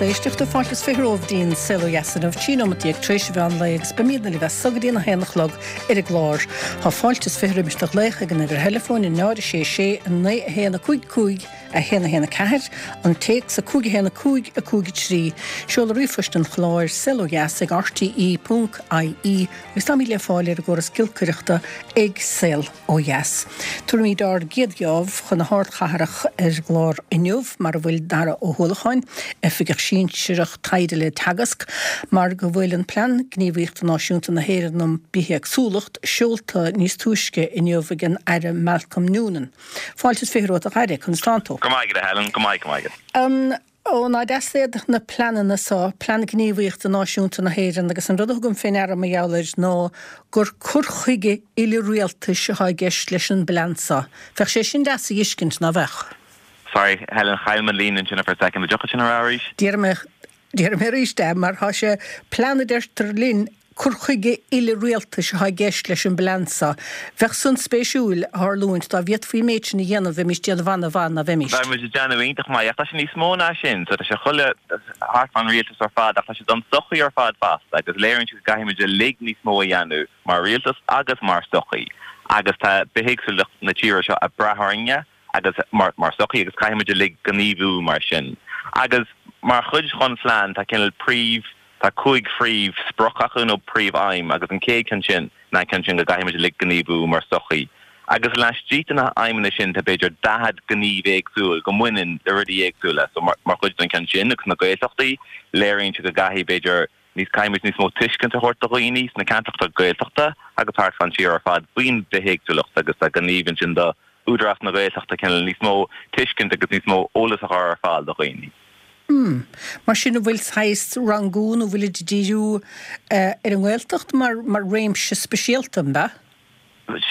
éisteachta, fáilte is 20 romhaibh dtí'n Saol Ó Dheas inniu, 13 nóimeat tar éis an mheán lae agus beimídne libh as so go dtí'n 1 a chlog ar an gclár. Tá fáilte is 20 roimis do ghlaoch ag an uimhir theileafóin 0 6 6 9 1 5 5 1 1 4, an téacs 5 1 5 5 3, seoladh ríomhphoist an chláir, saolodheas ag rte ponc ie agus táimid le fáil ar an gcóras giolcaireachta ag Saol. Ó Dheas. Tabharfaimid ár gcéad gheábh chun na hardchathrach ar an gclár inniu, mar a bhfuil Dara Ó hUallacháin, Oifigeach Sinsearach Taighde le Teagasc, mar go bhfuil an Plean Gníomhaíochta Náisiúnta na hÉireann um Bithéagsúlacht seolta níos túisce inniu ag an Aire Malcolm Noonan. Fáilte is 20 romhat a Aire, conas tánn tú? Go maith agat a Helen, go maith, go maith agat. Ó, ná deas iad na pleananna so, Plean Gníomhaíochta Náisiúnta na hÉireann, agus an rud a thugaim fé ndeara mar gheall air ná gur cur chuige uile-rialtais atá i gceist leis an bplean so. Bheadh sé sin deas a dh'fheiscint, ná bheadh? Sorry, Helen, chaill mé an líne ansin for a second. An dtiocfadh sin a rá arís? Déarfaidh mé, déarfaidh mé arís é, mar tá sé, plean a deirtear linn, Cur chuige uile-rialtais atá i gceist leis an bplean seo. Bheadh san spéisiúil a tharlúint dá bhféadfaí an méid sin a dhéanamh, bheimís déanamh ana-mhaith, ná bheimís? Bheadh muid ag déanamh iontach maith, ach tá sé níos mó ná sin. So tá sé chuile thart fán rialtas ar fad, ach tá sé don sochaí ar fad fosta, agus léiríonn sé go gcaithfidh muid uilig níos mó a dhéanamh mar rialtas agus mar sochaí. Agus tá bithéagsúlacht na tíre seo ag brath orainne agus mar sochaí agus caithfidh muid uilig gníomhú mar sin. Agus mar chuid dhon phlean tá cineál príomh Tá 5 phríomh sprioc acu nó príomh aidhm agus an chéad cheann sin ná an ceann sin go gcaithfidh muid uilig gníomhú mar sochaí. Agus laistigh de na haidhmeanna sin tá b'fhéidir 40 gníomh éagsúil go mbaineann le rudaí éagsúla. So mar chuid den cheann sin agus na Gaeltachtaí léiríonn sé go gcaithfidh b'fhéidir níos caithfidh muid níos mó tuiscint a thabhairt do dhaoine sna ceantracha Gaeltachta agus thart fán tír ar fad faoin bhithéagsúlacht agus tá gníomh ansin do Údarás na Gaeltachta cineál níos mó tuiscint agus níos mó eolas a chur ar fáil do dhaoine. Hmm. Mar sin an bhfuil saghas rangú nó bhfuilid ag díriú ar an nGaeltacht mar mar réimse speisialta, an ea?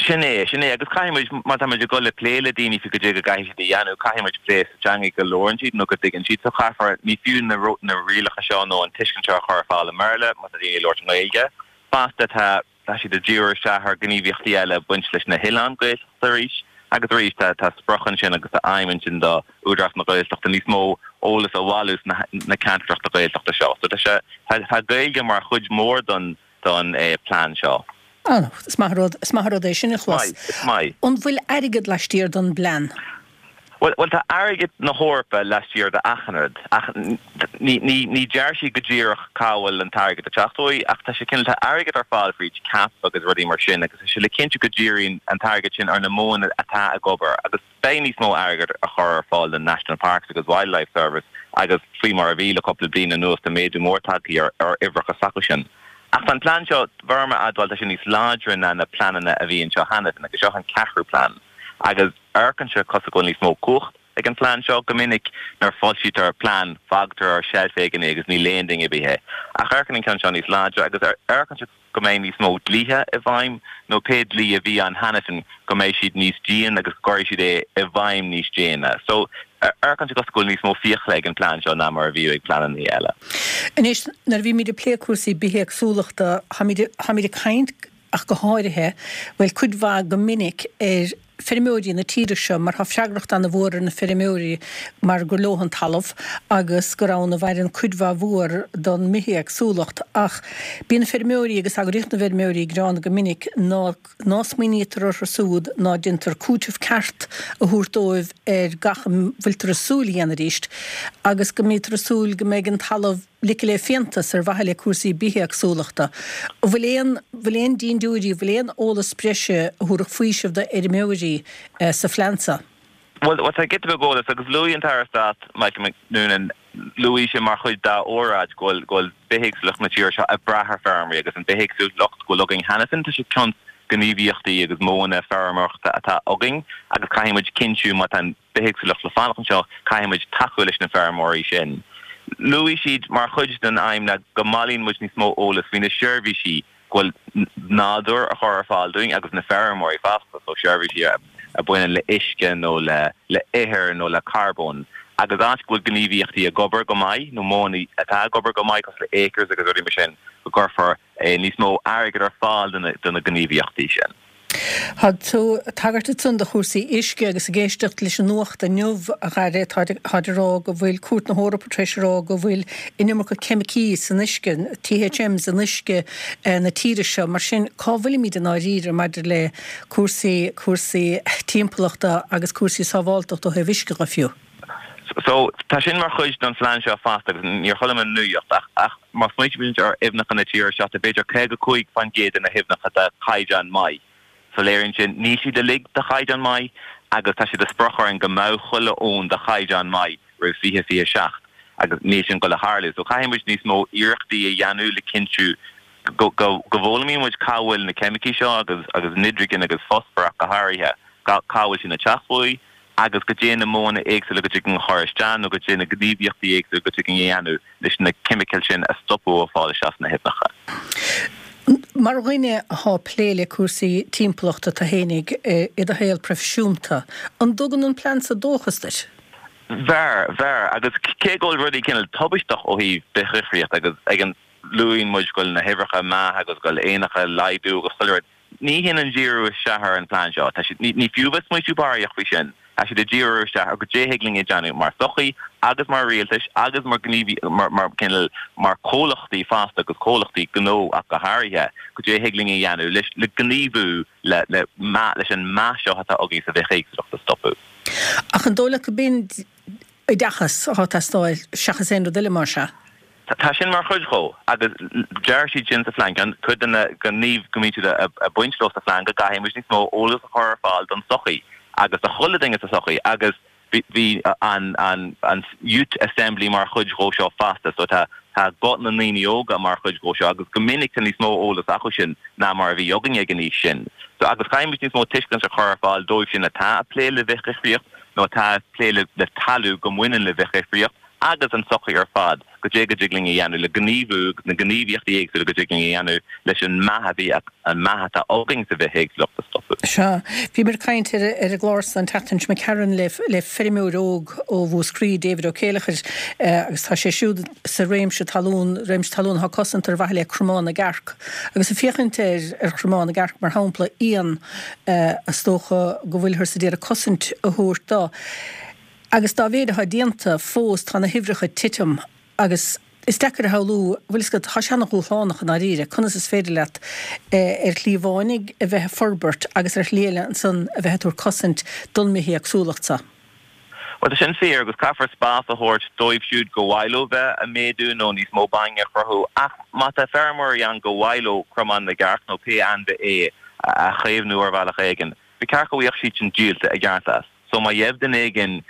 Sin é, sin é. Agus caithfidh muid, má tá muid ag dul le plé le daoine faoi goidé go gcaithfidh siad a dhéanamh, caithfidh muid plé sa teanga go labhrann siad nó go dtuigeann siad. So caithfear, ní fiú na na rialacha seo nó an tuiscint seo a chur ar fáil i mBéarla má tá daoine ag labhairt i nGaeilge. Fosta tá Tá siad ag díriú isteach ar ghníomhaíochtaí eile ag baint leis na hoileáin Gaeltachta arís agus arís. Tá tá sprioc ansin agus tá aidhm ansin do Údarás na Gaeltachta níos mó eolas a bhailiú sna na ceantracha Gaeltachta seo. So tá sé tá tá Gaeilge mar chuid mhór don don plean seo. Ah, is maith an rud, is maith an rud é sin a chlos. Is maith, is maith. An bhfuil airgead laistiar don bplean? Bhuel, bhuel, tá airgead na hEorpa laistiar de achan rud, ach ní, ní, ní deir siad go díreach cá bhfuil an t-airgead ag teacht uaidh, ach tá sé cineál, tá airgead ar fáil fríd CAP agus rudaí mar sin agus tá sé le cinntiú go díríonn an t-airgead sin ar na modhanna atá ag obair agus beidh níos mó airgead á chur ar fáil don National Parks agus Wildlife Service agus faoi mar a bhí le cúpla bliain anuas tá méadú mór tagtha ar, ar uimhreacha s'acu sin. Ach tá an plean seo, bheirim a admháil, tá sé níos láidre ná na pleananna a bhí anseo cheana féin agus seo an ceathrú plean agus. Amharcann sé cosúil go bhfuil níos mó cumhacht ag an phlean seo. Go minic nuair a foilsítear plean fágtar ar seilf éigin é agus ní léann duine ar bith é. Ach amharcann an ceann seo níos láidre agus amharcann sé go mbeidh níos mó dlíthe i bhfeidhm nó pé dlí a bhí ann cheana féin go mbeidh siad níos dian agus go gcuirfidh siad é i bhfeidhm níos déine. So amharcann sé cosúil go bhfuil níos mó fiacla ag an phlean seo ná mar a bhíodh ag pleananna eile. Anois nuair a bhímid ag plé cúrsaí bithéagsúlachta táimid táimid ag caint ach go háirithe, bhuel, cuid mhaith go minic ar feirmeoirí na tíre seo mar tá freagracht ana-mhór ar na feirmeoirí mar gur leo an talamh agus gur ann a mhaireann cuid mhaith mhór don mbithéagsúlacht ach bíonn feirmeoirí agus eagraíocht na bhfeirmeoirí ag gearán go minic ná ná smaoinítear orthu siúd ná déantar cúiteamh ceart a thabhairt dóibh ar gach a bhfuiltear ag súil a dhéanamh arís agus go mbítear ag súil go mbeidh an talamh ligthe le fiántas ar mhaithe le cúrsaí bithéagsúlachta. An bhfuil aon, bhfuil aon dindiúirí, bhfuil aon eolas breise a thabharfadh faoiseamh do fheirmeoirí sa phlean seo? Bhuel, tá giota beag eolais agus luaigh an tAire Stáit Michael Noonan, luaigh sé mar chuid dá óráid go bhfuil, go bhfuil bithéagsúlacht na tíre seo ag brath ar feirmeoirí agus an bithéagsúlacht go bhfuil againn cheana féin, tá sé cionn gníomhaíochtaí agus modhanna feirmeoireachta atá againn agus caithfidh muid cinntiú má tá an bithéagsúlacht le fanacht anseo, caithfidh muid tacú leis na feirmeoirí sin. Luaigh siad mar chuid den aidhm ná go mbailíonn muid níos mó eolas faoi na seirbhísí go bhfuil nádúr a chur ar fáil dúinn agus na feirmeoirí fosta, so seirbhísí a bhaineann le uisce nó le le ithir nó le carbón. Agus áit go bhfuil gníomhaíochtaí ag obair go maith nó modhanna atá ag obair go maith cosúil le ACRES agus rudaí mar sin, go gcuirfear níos mó airgid ar fáil do na gníomhaíochtaí sin. Tá tú ag tagairt ansan do chúrsaí uisce agus ag éisteacht leis an nuacht inniu, a Dhara, táid ag rá go bhfuil Cúirt na hEorpa tar éis a rá go bhfuil an iomarca ceimicí san uisce, THMs in uisce na tíre seo. Mar sin, cá bhfuilimid i ndáiríre maidir le cúrsaí, cúrsaí timpeallachta agus cúrsaí sábháltachta ó thaobh uisce dhe fiú? So, tá sin mar chuid den phlean seo fosta agus níor chuala mé an nuacht ach, ach má smaoitímid ar aibhneacha na tíre seo, tá b'fhéidir 55% de na haibhneacha de chaighdeán maith. So léiríonn sin, níl siad uilig de chaighdeán maith agus tá sé de sprioc orainn go mbeadh chuile abhainn de chaighdeán maith roimh 2027 agus níl sin ag dul a tharlú. So caithfidh muid níos mó iarrachtaí a dhéanamh le cinntiú go, go, go bhfoghlaimíonn muid cá bhfuil na ceimicí seo agus, agus nitrigin agus fosfar ach go háirithe, cá bhfuil sin ag teacht uaidh. agus goidé na modhanna éagsúla go dtig linn a chur isteach nó goidé na gníomhaíochtaí éagsúla go dtig linn a dhéanamh leis na ceimicil sin a stopadh ó fáil isteach sna haibhneacha. Mar dhuine athá plé le cúrsaí timpeallachta tú fhéinig i do shaol proifisiúnta, an dtugann an plean so dóchas duit? Bheir, bheir. Agus cé go bhfuil rudaí cineál tubaisteach ó thaobh bithdhifríocht agus ag an luaíonn muid go bhfuil na huimhreacha ag meath agus go bhfuil éanacha ag laghdú agus chuile rud, Ní shin an díriú isteach ar an phlean seo. Tá siad, ní fiú bheith smaoitiú barraíocht faoi sin. Tá siad ag díriú isteach ar goidé thig linn a dhéanamh mar sochaí agus mar rialtais agus mar gníomhaí, mar, mar cineál, mar comhlachtaí fosta agus comhlachtaí gnó ach go háirithe, goidé thig linn a dhéanamh leis, le gníomhú le, le meath, leis an meath seo atá againn sa bhithéagsúlacht a stopadh. Ach an dóigh leat go b'in oideachas atá ag teastáil seachas aon rud eile, más ea? Tá sin mar chuid dhó agus deir siad sin sa phlean, ceann, cuid de na gníomh go mbíonn siad ag baint leo sa phlean go gcaithfidh muid níos mó eolas a chur ar fáil don tsochaí agus do chuile duine sa tsochaí agus bhí an an an Youth Assembly mar chuid dhó seo fosta so tá tá guth na ndaoine óga mar chuid dhó seo agus go minic tá níos mó eolas acu sin ná mar a bhí againne ag an aois sin. So agus caithfidh muid níos mó tuiscint a chur ar fáil dóibh sin atá ag plé le bithdhifríocht nó atá ag plé le talamh go mbaineann le bithdhifríocht agus an tsochaí ar fad, goidé go dtig linn a dhéanamh le gníomhú agus na gníomhaíochtaí éagsúla go dtig linn a dhéanamh leis an meath a bhí, an meath atá againn sa bhithéagsúlacht a stopadh. Sea. Bhíomar ag caint ar an gclár san an tseachtain seo imigh tharainn le le feirmeoir óg ó Mhúscraí, David Ó Céileachair, agus tá sé siúd sa réimse talún, réimse talún atá cosanta ar mhaithe le Cromán na gCearc. Agus ag féachaint ar ar Chromán na gCearc mar shampla, éan is dócha go bhfuilthear ag iarraidh cosaint a thabhairt dó. Agus dá mhéid atá déanta, fós tá na huimhreacha ag titim agus is deacair a shamhlú, bhfuil fhios agat, tá sé ana-dhúshlánach i ndáiríre, conas is féidir leat ar shlí amháin a bheith ag forbairt agus ar shlí eile ansan a bheith ag tabhairt cosaint don mbithéagsúlacht so. Bhuel, tá sin fíor agus caithfear spás a thabhairt dóibh siúd go mhaith leo bheith ag méadú nó níos mó bainne a chruthú ach má tá feirmeoirí ann go mhaith leo cromán na gcearc nó pé ainmhí é a chaomhnú ar bhealach éigin, ba cheart go bhfaigheadh siad sin díolta i gceart as. So má gheibh duine éigin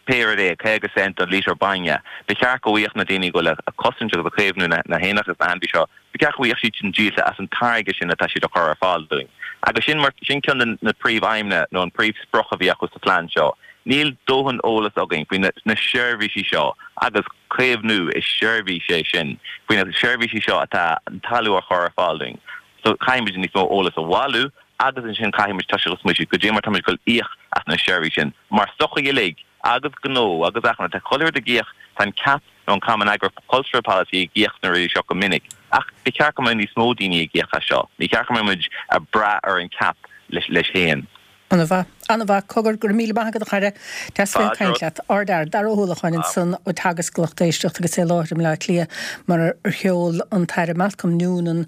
pé rud é, 50 cent don lítear bainne, ba cheart go bhfaigheadh na daoine go bhfuil ag cosaint agus ag caomhnú na héanacha agus na hainmhí seo, ba cheart go bhfaigheadh siad sin díolta as an táirge sin atá siad a chur ar fáil dúinn. Agus sin mar, sin ceann de na príomh-aidhmeanna nó an príomh-sprioc a bhí acu sa phlean seo. Níl dóthain eolas againn faoi na na seirbhísí seo agus caomhnú, is seirbhís é sin, faoi na seirbhísí seo atá an talamh a chur ar fáil dúinn. So caithfidh muid níos mó eolas a bhailiú agus ansin caithfidh muid toiseacht ag smaoitiú goidé mar tá muid ag dul íoc as na seirbhísí sin mar sochaí uilig agus gnó agus achan rud. Tá chuile rud ag íoc, tá an CAP nó an Common Agricultural Policy ag íoc sna rudaí seo go minic ach ba cheart go mbeadh níos mó daoine ag íoc as seo. Ní cheart go mbeadh muid ag brath ar an CAP leis féin. An-mhaith. An-mhaith. Cogar, go raibh míle maith agat a chara. Deas bheith ag caint leat. Ardfhear. Dara Ó hUallacháin ansan ó Teagasc, lucht éisteachta agus é i láthair i mBleá Cliath mar ar sheol an tAire Malcolm Noonan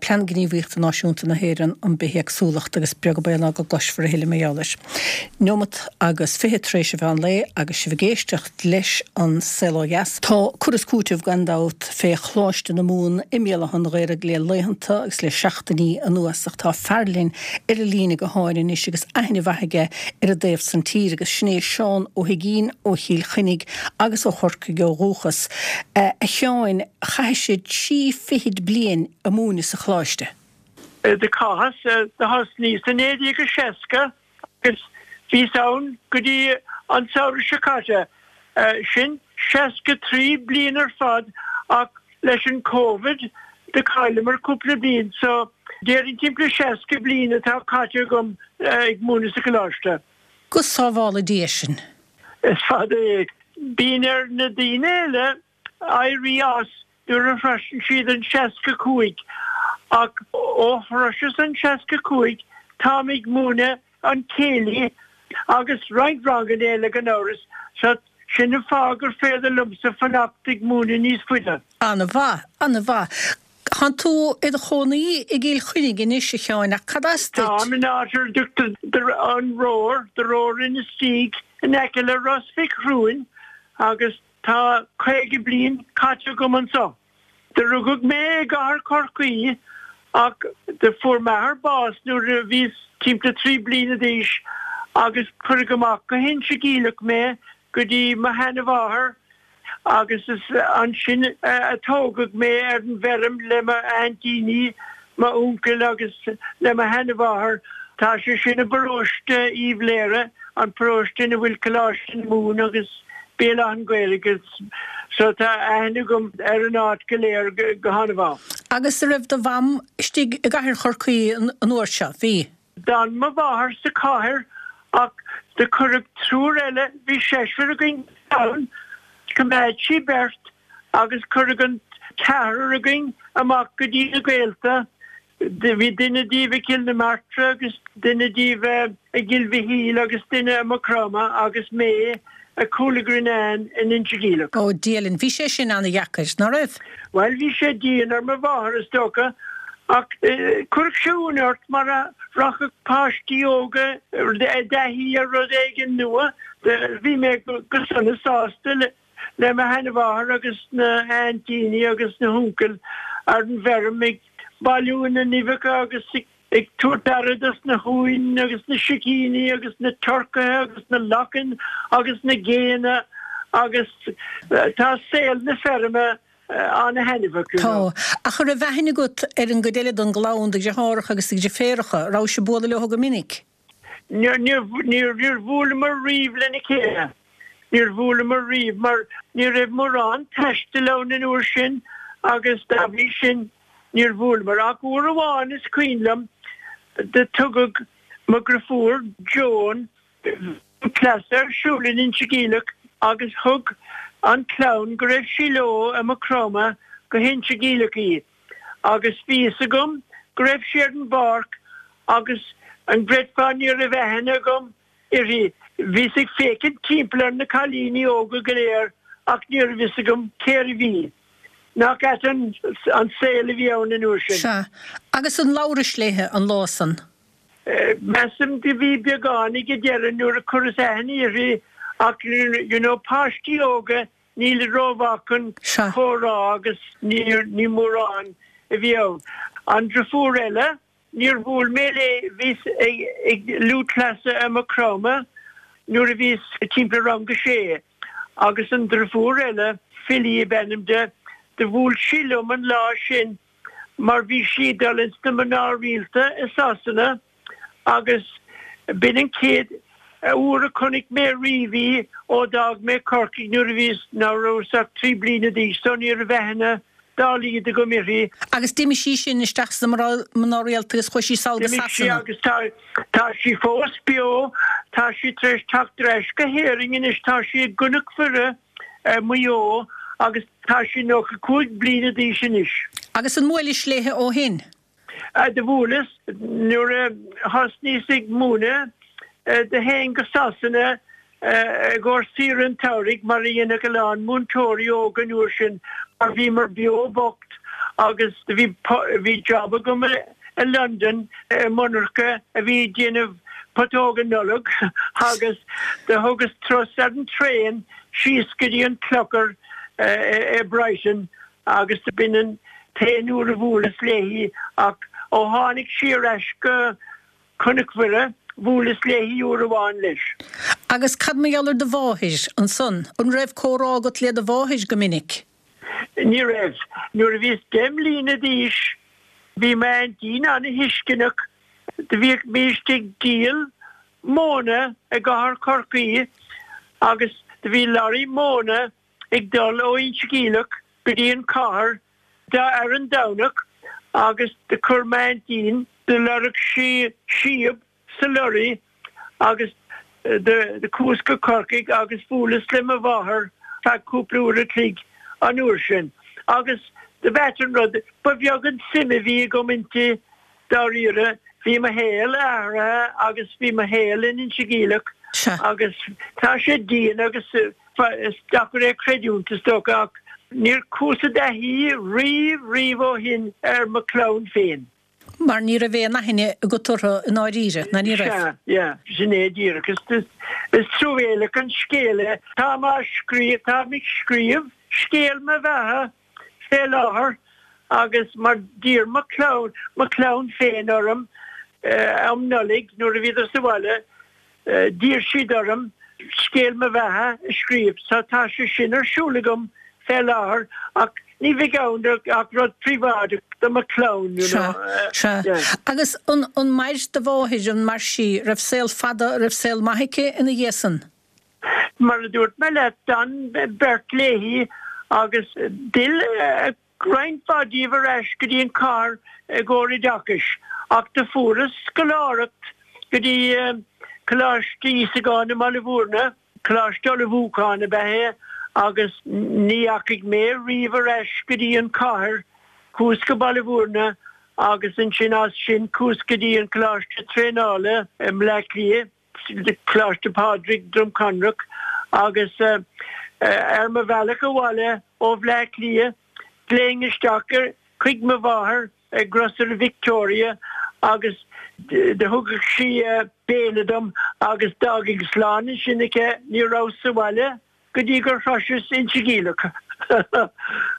Plean Gníomhaíochta Náisiúnta na hÉireann um Bithéagsúlacht agus beag an baol ná go gcloisfear a thuilleadh mar gheall air. Neomat agus 20 tar éis an mheán lae agus sibh ag éisteacht leis An Saol Ó Dheas. Tá cur is cúiteamh gan dabht fé Choláiste na Mumhan i mBéal Átha an Ghaorthaidh le laethanta agus le seachtainí anuas ach tá fear linn ar an líne gutháin anois agus aithne mhaith aige ar an dtaobh san tíre agus sin é Seán Ó hUigínn ó Chill Chainnigh agus ó Chorcaigh ó dhúchas. A Sheáin, chaithis trí fichid bliain ag múineadh sa choláiste. Do chaitheas, do thosnaíos i 1960 agus bhíos ann go dtí an samhradh seo caite, sin 63 bliain ar fad ach leis an Covid do chailleamar cúpla bliain so déarfainn timpeall 60 bliain atá caite agam ag múineadh sa choláiste. Go sábhála Dia sinn. Is fada é. Bíonn ar na daoine eile éirí as nuair a shroiseann siad an 65 ach ó shroiseas an 65. táim ag múineadh an céilí agus roinnt ranganna eile gan amhras, so sin an fáth gur féidir liomsa fanacht ag múineadh níos faide. An-mhaith, an-mhaith. Tánn tú i do chónaí i gCill Chainnigh anois, a Sheáin, ach cad as duit? Táim in áit ar a dtugtar An Rór, The Roar Inistioge, in aice le Ros Mhic Thriúin agus tá 50 bliain caite agam anso. Do rugadh mé i gcathair Chorcaí ach do fuair m'athair bás nuair a bhíos timpeall 3 bliana d'aois agus cuireadh amach go hInse Geimhleach mé go dtí mo sheana-mháthair agus is ansin a tógadh mé ar an bhfeirm le m'aintíní, m'uncail agus le mo sheana-mháthair. Tá sé sin i bparóiste Uíbh Laoghaire, an paróiste ina bhfuil Coláiste na Mumhan agus Béal Átha an Ghaorthaidh so tá aithne agam ar an áit go léir go han-mhaith. Agus a' raibh do mham istigh i gcathair Chorcaí an uair seo? Bhí. D'fhan mo mháthair sa chathair ach do cuireadh triúr eile, bhí seisear againn ann, choimeád sí beirt agus cuireadh an ceathrar againn amach go dtí na gaolta. Bhí duine díobh i gCill na Martra agus duine díobh i gCill Mhichíl agus duine i Maigh Chromtha agus mé i Cúil a' Ghrianáin in Inse Geimhleach. Ó, Dia linn, bhí sé sin ana-dheacair, ná raibh? Bhuel, bhí sé dian ar mo mháthair, is dócha, ach chuirfeadh sé ionadh ort mar a rachadh páistí óga i dtaithí ar rud éigin nua. Bhí mé go sona sásta le. le mo sheanmháthair agus na haintíní agus na huncail ar an bhfeirm ag bailiú na n-uibheacha agus ag tabhairt aire dos na huain agus na sicíní agus na turcaithe agus na lachain agus na géanna agus tá saol na feirme ana-thaitneamhach, you know. Tá. Ach an raibh aithne agat ar an gcuid eile den gclann, do dheartháireacha agus do dheirféaracha? An rabhais ag bualadh leo go minic? Níor bhuaileamar riamh lena chéile. Níor bhuaileamar riamh mar ní raibh mórán taistil ann an uair sin agus dá bhrí sin níor bhuaileamar. Ach uair amháin is cuimhin liom do tugadh mo dhriofúr Joan cleasa ar siúl in Inse Geimhleach agus thug an clann go raibh sí leo i Maigh Chromtha go hInse Geimhleach í. agus bhí fhios agam go raibh sí ar an bpáirc agus an gcreidfeá ní raibh aithne agam uirthi. Bhíos ag féachaint timpeall ar na cailíní óga go léir ach ní raibh fhios agam cérbh í. Nach ait an saol a bhí ann an uair sin. Sea. Agus an labhrais léithe an lá san? Measaim do bhí beagán ag an deireadh nuair a chuireas aithne uirthi ach you know páistí óga Níl rómhaith chun comhrá agus ní mórán a bhí ann. An driofúr eile, níor bhuail mé léi, bhíos ag lúthchleasa i Maigh Chromtha nuair a bhíos timpeall rang a sé agus an driofúr eile, Philly ab ainm di, do bhuail sí liom an lá sin mar bhí sí ag dul ins na mná rialta i Sasana agus b'in an chéad uair a chonaic mé riamh í ó d'fhág mé Corcaigh nuair a bhíos, ná rabhas ach 3 bliana d'aois so ní raibh aithne dá laghad agam uirthi. Agus d'imigh sí sin isteach sna mná rialta agus chuaigh sí sall go D'imigh sí Sasana. agus tá, tá sí fós beo, tá sí tar éis teacht ar ais go hÉirinn anois, tá sí i gCnoc Mhuire i Maigh Eo agus tá sí 95 bliana d'aois anois. Agus an mbuailis léithe ó shin? Do bhuaileas nuair a thosnaíos ag múineadh. Do théinn go Sasana i gcomhair saoire an tsamhraidh mar a dhéanfadh a lán múinteoirí óga an uair sin mar bhíomar beo bocht agus do bhí bhí job agam i Londain i monarcha a bhí ag déanamh putóga Nollag agus do thugas turas ar an traein síos go dtí an Clochar i Brighton agus b'in an t-aon uair a bhuaileas léi ach ó tháinig sí ar ais go Cnoc Mhuire, bhuaileas léi uair amháin leis. Agus cad mar gheall ar do mháthair, ansan? An raibh comhrá agat le do mháthair go minic? Ní raibh. Nuair a bhíos deich mbliana d'aois bhí m'aintín ana-thuisceanach. Do bhíodh bhímist ag díol móna i gcathair Chorcaí agus do bhí lorry móna ag dul ó Inse Geimhleach go dtí an chathair ar an Domhnach agus do chuir m'aintín, do lorg sí síob sa lorry agus do chuas go Corcaigh agus bhuaileas le mo mháthair feadh cúpla uair a chloig an uair sin agus do b'ait an rud, ba bheag an suim a bhí agam inti dáiríre. Bhí mo shaol athraithe agus bhí mo shaol in Inse Geimhleach agus tá sé dian agus is deacair é a chreidiúint is dócha ach níor chuas i dtaithí riamh riamh ó shin ar mo chlann féin. Mar ní raibh aon aithne agat orthu i ndáiríre, ná ní raibh? Sea, yeah, sin é díreach. Is, is truamhéalach an scéal é. Táim á scríobh, táim ag scríobh scéal mo bheatha fé láthair agus mar d'iarr mo chlann, mo chlann féin orm um Nollaig nuair a bhíodar sa bhaile, d'iarr siad orm scéal mo bheatha a scríobh so tá sé sin ar siúl agam fé láthair ach ní bheidh ann ach rud príobháideach do mo chlann, you know. Sea, sea. Agus an, an mair do mháthair, an mair sí, raibh saol fada, raibh saol maith aici ina dhiaidh san? Mar a dúirt mé leat, d'fhan beirt léi agus d'fhill roinnt mhaith díobh ar ais go dtí an chathair i gcomhair oideachais ach do fuaireas scoláireacht go dtí Coláiste Íosagáin i mBaile Bhúirne, coláiste ullmhúcháin ab ea é, agus ní dheachaigh mé riamh ar ais go dtí an chathair. Chuas go Baile Bhúirne agus ansin as sin chuas go dtí an coláiste traenála i mBleá Cliath. Coláiste Phádraig, Droim Conrach, agus ar mo bhealach abhaile ó Bhleá Cliath ghlaofainn isteach chuig mo mháthair i Grocery Victoria agus do thugadh sí béile dom agus d'fhágfainn slán ansin aici, ní rabhas sa bhaile go dtí gur shroiseas Inse Geimhleach.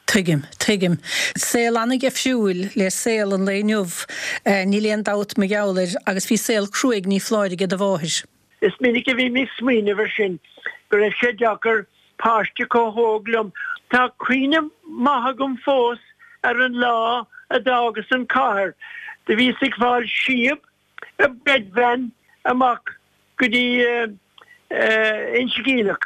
Tuigim, tuigim. Saol an-dhifriúil le saol an lae inniu, níl aon dabht mar gheall air, agus bhí saol cruaidh, ní foláir, aige do mháthair. Is minic a bhím ag smaoineamh ar sin, go raibh sé deacair, páiste chomh hóg liom. Tá cuimhne maith agam fós ar an lá a d'fhágas an chathair. Do bhíos ag fáil síob i bread van amach go dtí Inse Geimhleach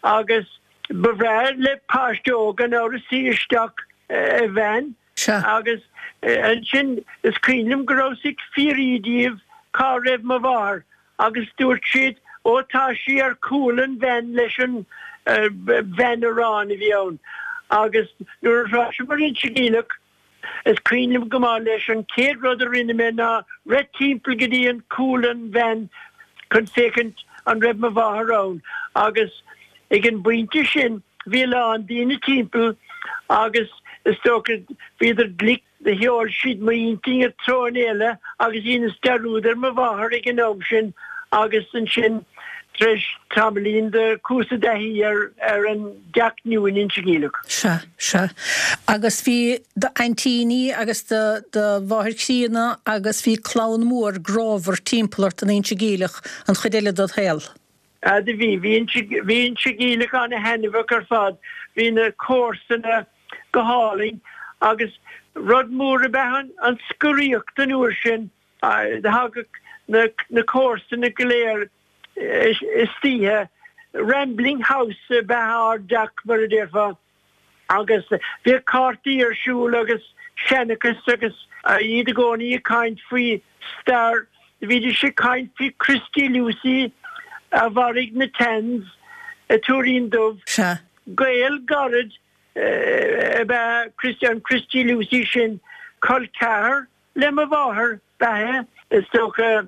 agus ba bhreá le páiste óg gan amhras suí isteach i veain agus ansin is cuimhin liom go rabhas ag fiafraí díobh cá raibh mo mháthair agus dúirt siad ó tá sí ar chúl an veain leis an veain aráin a bhí ann agus nuair a shroiseamar Inse Geimhleach Is cuimhin liom go maith leis an chéad rud a rinne mé ná rith timpeall go dtí an cúl an veain chun féachaint an raibh mo mháthair ann agus ag an bpointe sin bhí a lán daoine timpeall agus is dócha bhíodar glic do sheol siad m'intinn i dtreo eile agus dheineas dearúd ar mo mháthair ag an am sin agus ansin tar éis tamaillín do chuas i dtaithí ar ar an dteach nua in Inse Geimhleach. Sea. Sea. Agus bhí d'aintíní agus do do mháthair chríonna agus bhí clann mhór grámhar timpeall ort in Inse Geimhleach an chuid eile dod shaol. Ah do bhí. Bhí Inse bhí Inse Geimhleach ana-thaitneamhach ar fad. Bhí na comharsana go hálainn agus rud mór ab ea an an scoraíocht an uair sin. Thagadh na na comharsana go léir istoíche. Rambling house ab ea ár dteach mar a déarfá. Agus bhíodh cártaí ar siúl agus seanchas agus iad i gcónaí ag caint faoi stair. Bhídís ag caint faoi Christy Lucey a mharaigh na Tans i Tuairín Dubh. Sea. Gaol gairid ab ea Christy, an Christy Lucey sin, col ceathar Le mo mháthair ab ea é, is dócha,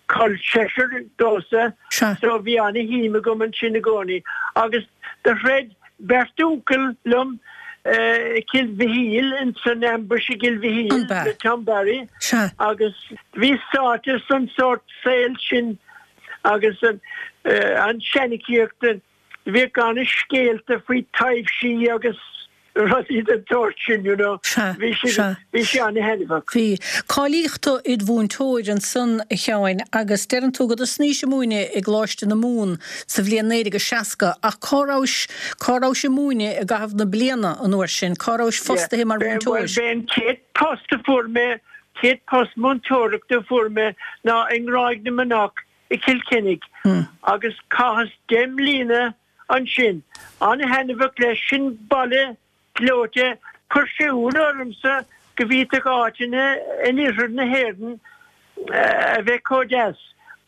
col seisear domhsa, so bhí ana-shuim agam ansin i gcónaí. Agus do throid beirt uncail liom i gCill Mhichíl, ins an ambush i gCill Mhichíl le Tom Barry agus bhíos sáite san sórt saol sin agus an seanchaíocht. Bhíodh ana-scéalta faoi taibhsí agus rudaí den tsórt sin, you know. Sea, Bhí sé, sea. bhí sé ana-thaitneamhach. Bhí. Cáilíodh tú id mhúinteoir ansan, a Sheáin, agus deireann tú go dtosnaís ag múineadh i gColáiste na Mumhan sa bhliain 1960, ach cá rabhais, cá rabhais ag múineadh i gcaitheamh na bliana an uair sin? Cá rabhais Yeah. fostaithe mar Bhuel, mhúinteoir? b'é an chéad post a fuair mé, chéad post múinteoireachta a fuair mé ná i nGráig na Manach i gCill Chainnigh agus chaitheas 10 mbliana ansin. An-thaitneamhach leis, sin baile gleoite. Chuir sé ionadh ormsa go bhféadfadh áiteanna in oirthear na hÉireann a bheith chomh deas.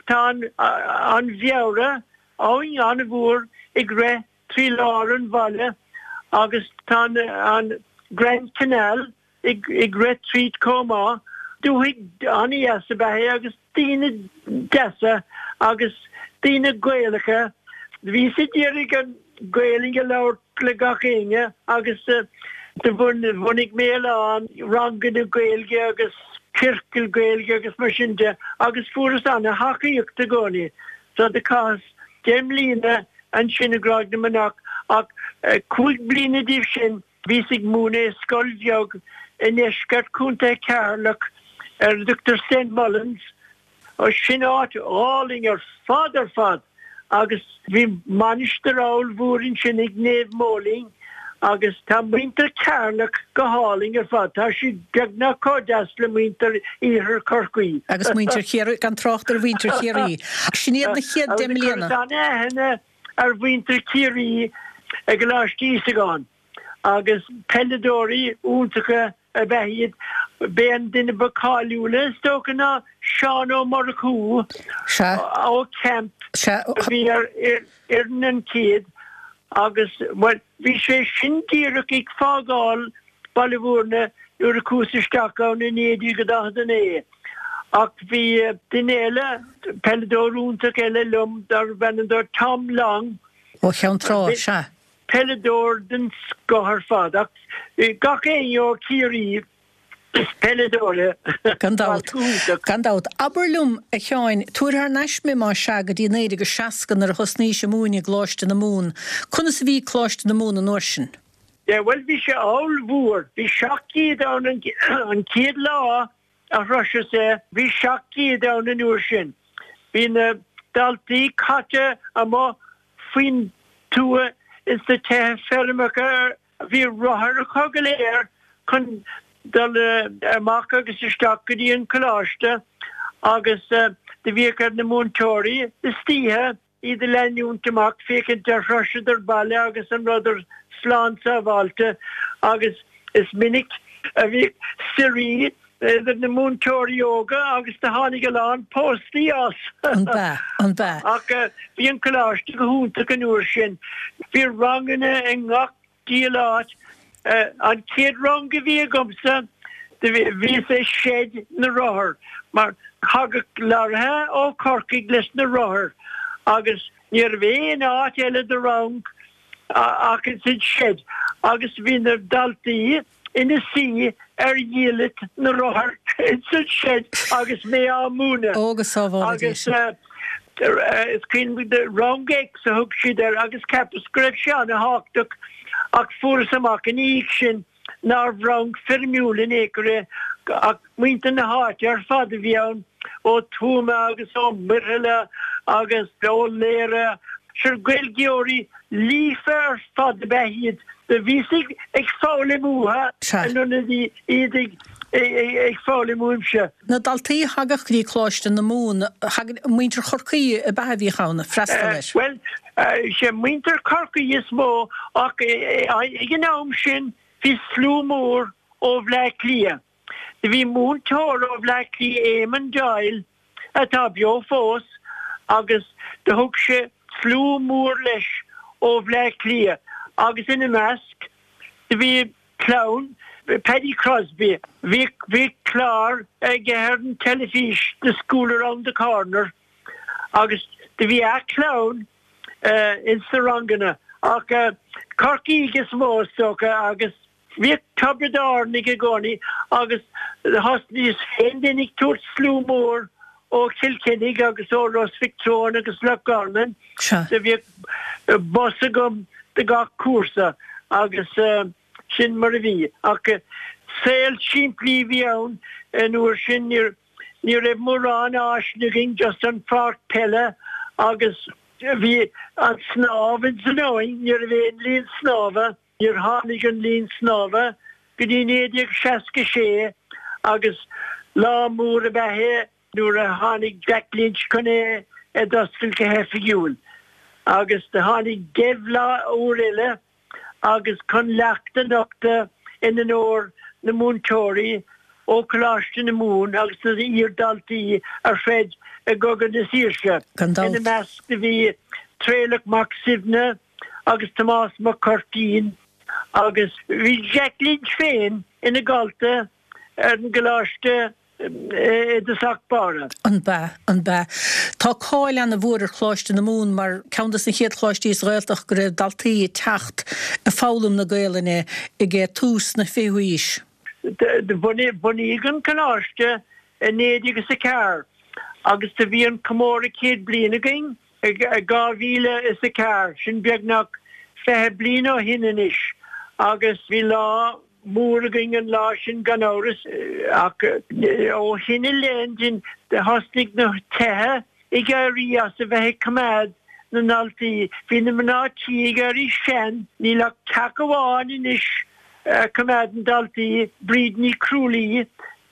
Tá an Bheara, abhainn an-mhór, ag rith trí lár an bhaile agus tá an Grand Canal ag rith tríd chomh maith. Dúthaigh an-dheas ab ea é agus daoine deasa agus daoine Gaelacha. Bhíos ag iarraidh an Ghaelainn a labhairt le gach éinne agus do bhunaigh mé a lán ranganna Gaeilge agus ciorcail Gaeilge agus mar sin de agus fuaireas ana-thacaíocht i gcónaí. So do chaitheas 10 mbliana ansin i gCráig na Manach ach 5 bliana díobh sin bhíos ag múineadh i scoil bheag i ndeisceart Chontae Cheatharlach ar a dtugtar St Mullins. Sin áit álainn ar fad ar fad agus bhí mainistir ollmhór ansin ag Naomh Móilín agus tá muintir Cheatharlach go hálainn ar fad, tá siad beagnach chomh deas le muintir Iarthar Chorcaí. Agus muintir Chiarraí, gan trácht ar mhuintir Chiarraí. Sin iad na chéad deich mbliana. Agus chuireas an-aithne ar mhuintir Chiarraí i gColáiste Íosagáin agus peileadóirí iontacha ab ea iad. B'é an duine ba cáiliúla is dócha ná Seán Ó Murchú ó Camp a bhí ar fhoireann an chéad agus, bhuel, bhí sé sin díreach ag fágáil Baile Bhúirne nuair a chuas isteach ann i 1949. Ach bhí duine eile, peileadóir iontach eile liom darbh ainm dó Tom Long. Ó Cheann Trá, sea. Peileadóir den scoth ar fad ach gach éinne ó Chiarraí is peileadóir é. Gan dabht. Gan dabht. Abair liom, a Sheáin, tabhair thar n-ais mé más ea go dtí 1960 nuair a thosnaís ag múineadh i gColáiste na Mumhan. Conas a bhí Coláiste na Mumhan an uair sin? Yeah, bhuel bhí sé ollmhór. Bhí 700 ann an chéad lá a shroiseas é. Bhí 700 ann an uair sin. Bhí na daltaí caite amuigh faoin tuath ins na tithe feirmeacha. Bhí rothair acu go léir chun dul amach agus isteach go dtí an coláiste agus do bhíodh ar na múinteoirí istoíche iad a leanúint amach féachaint ar shroiseadar baile agus an rabhadar slán sábháilte agus is minic a bhíodh suirí idir na múinteoirí óga agus do tháinig a lán póstaí as. An b'ea? An b'ea? Ach bhí an coláiste go hiontach an uair sin. Bhí ranganna i ngach diabhal áit. An chéad rang a bhí agamsa bhíos i seid na rothar mar thagadh lorraithe ó Chorcaigh leis na rothair agus ní raibh aon áit eile do rang ach ins an seid agus bhí na daltaí ina suí ar dhiallait na rothar ins an seid agus mé á múineadh. Ó go sábhála Dia Agus sinn. is cuimhin liom Rang X a thug siad air agus cheapas go raibh sé ana-thábhachtach ach fuaireas amach ina dhiaidh sin nárbh rang foirmiúil in aon chor é ach muintir na háite ar fad a bhí ann, ó Tuama agus ó Muirthile agus ó Laoire. Sure Gaeilgeoirí líofa ar fad ab ea iad. Do bhíos ag foghlaim uathu in ionad iad ag foghlaim uaimse. Na daltaí a thagadh go dtí Coláiste na Mumhan, thagadh muintir Chorcaí ab ea a bhíodh ann ag freastal air? Bhuel, sé muintir Chorcaí is mó ach ag an am sin bhí slua mór ó Bhleá Cliath. Do bhí múinteoir ó Bhleá Cliath, Éamon Doyle, atá beo fós, agus do thug sé slua mór leis ó Bhleá Cliath agus ina measc do bhí clann Paddy Crosbie. Bhí bhí clár aige ar an teilifís The School Around the Corner agus do bhí a chlann ins na ranganna ach Corcaígh is mó is dócha agus Bhíodh Tiobraid Árannaigh i gcónaí agus thosnaíos féin then ag tabhairt slua mór ó Chill Chainnigh agus ó Ros Mhic Treoin agus Loch Garman. Do bhíodh bus agam do gach cúrsa agus sin mar a bhí. Ach saol simplí a bhí ann an uair sin, ní raibh mórán áiseanna againn, just an pháirc peile agus bhí an snámh ins an abhainn, ní raibh aon linn snámha. Níor tháinig an linn snámha go dtí 1966 agus lá mór ab ea é nuair a tháinig Jack Lynch chun é a d'oscailt go hoifigiúil. Agus do tháinig Dev lá úr eile agus chun leacht a nochtadh in onóir na múinteoirí ó Choláiste na Mumhan agus na iar-dhaltaí a throid i gCogadh na Saoirse. Gan dabht. Ina measc do bhí Traolach Mac Suibhne, agus Tomás Mac Cuirtín agus bhí Jack Lynch féin ina dhalta ar an gcoláiste. I dtosach báire. An b'ea? An b'ea? Tá cáil ana-mhór ar Choláiste na Mumhan mar ceann dos na chéad choláistí sa Ghaeltacht go raibh daltaí ag teacht ag foghlaim na Gaelainne ag tús na fichiú haois. Do bunaíodh an Coláiste i 1904 agus do bhí an comóradh 100 bliain againn i 2004, sin beagnach 20 bliain ó shin anois, agus bhí lá mór againn an lá sin gan amhras, ach ó shin i leith thosnaigh na tithe ag éirí as a bheith ag coimeád na ndaltaí. Bhí na mná tí ag éirí sean, níl ach teach amháin anois a choimeádann daltaí, Bríd Ní Chrualaoi,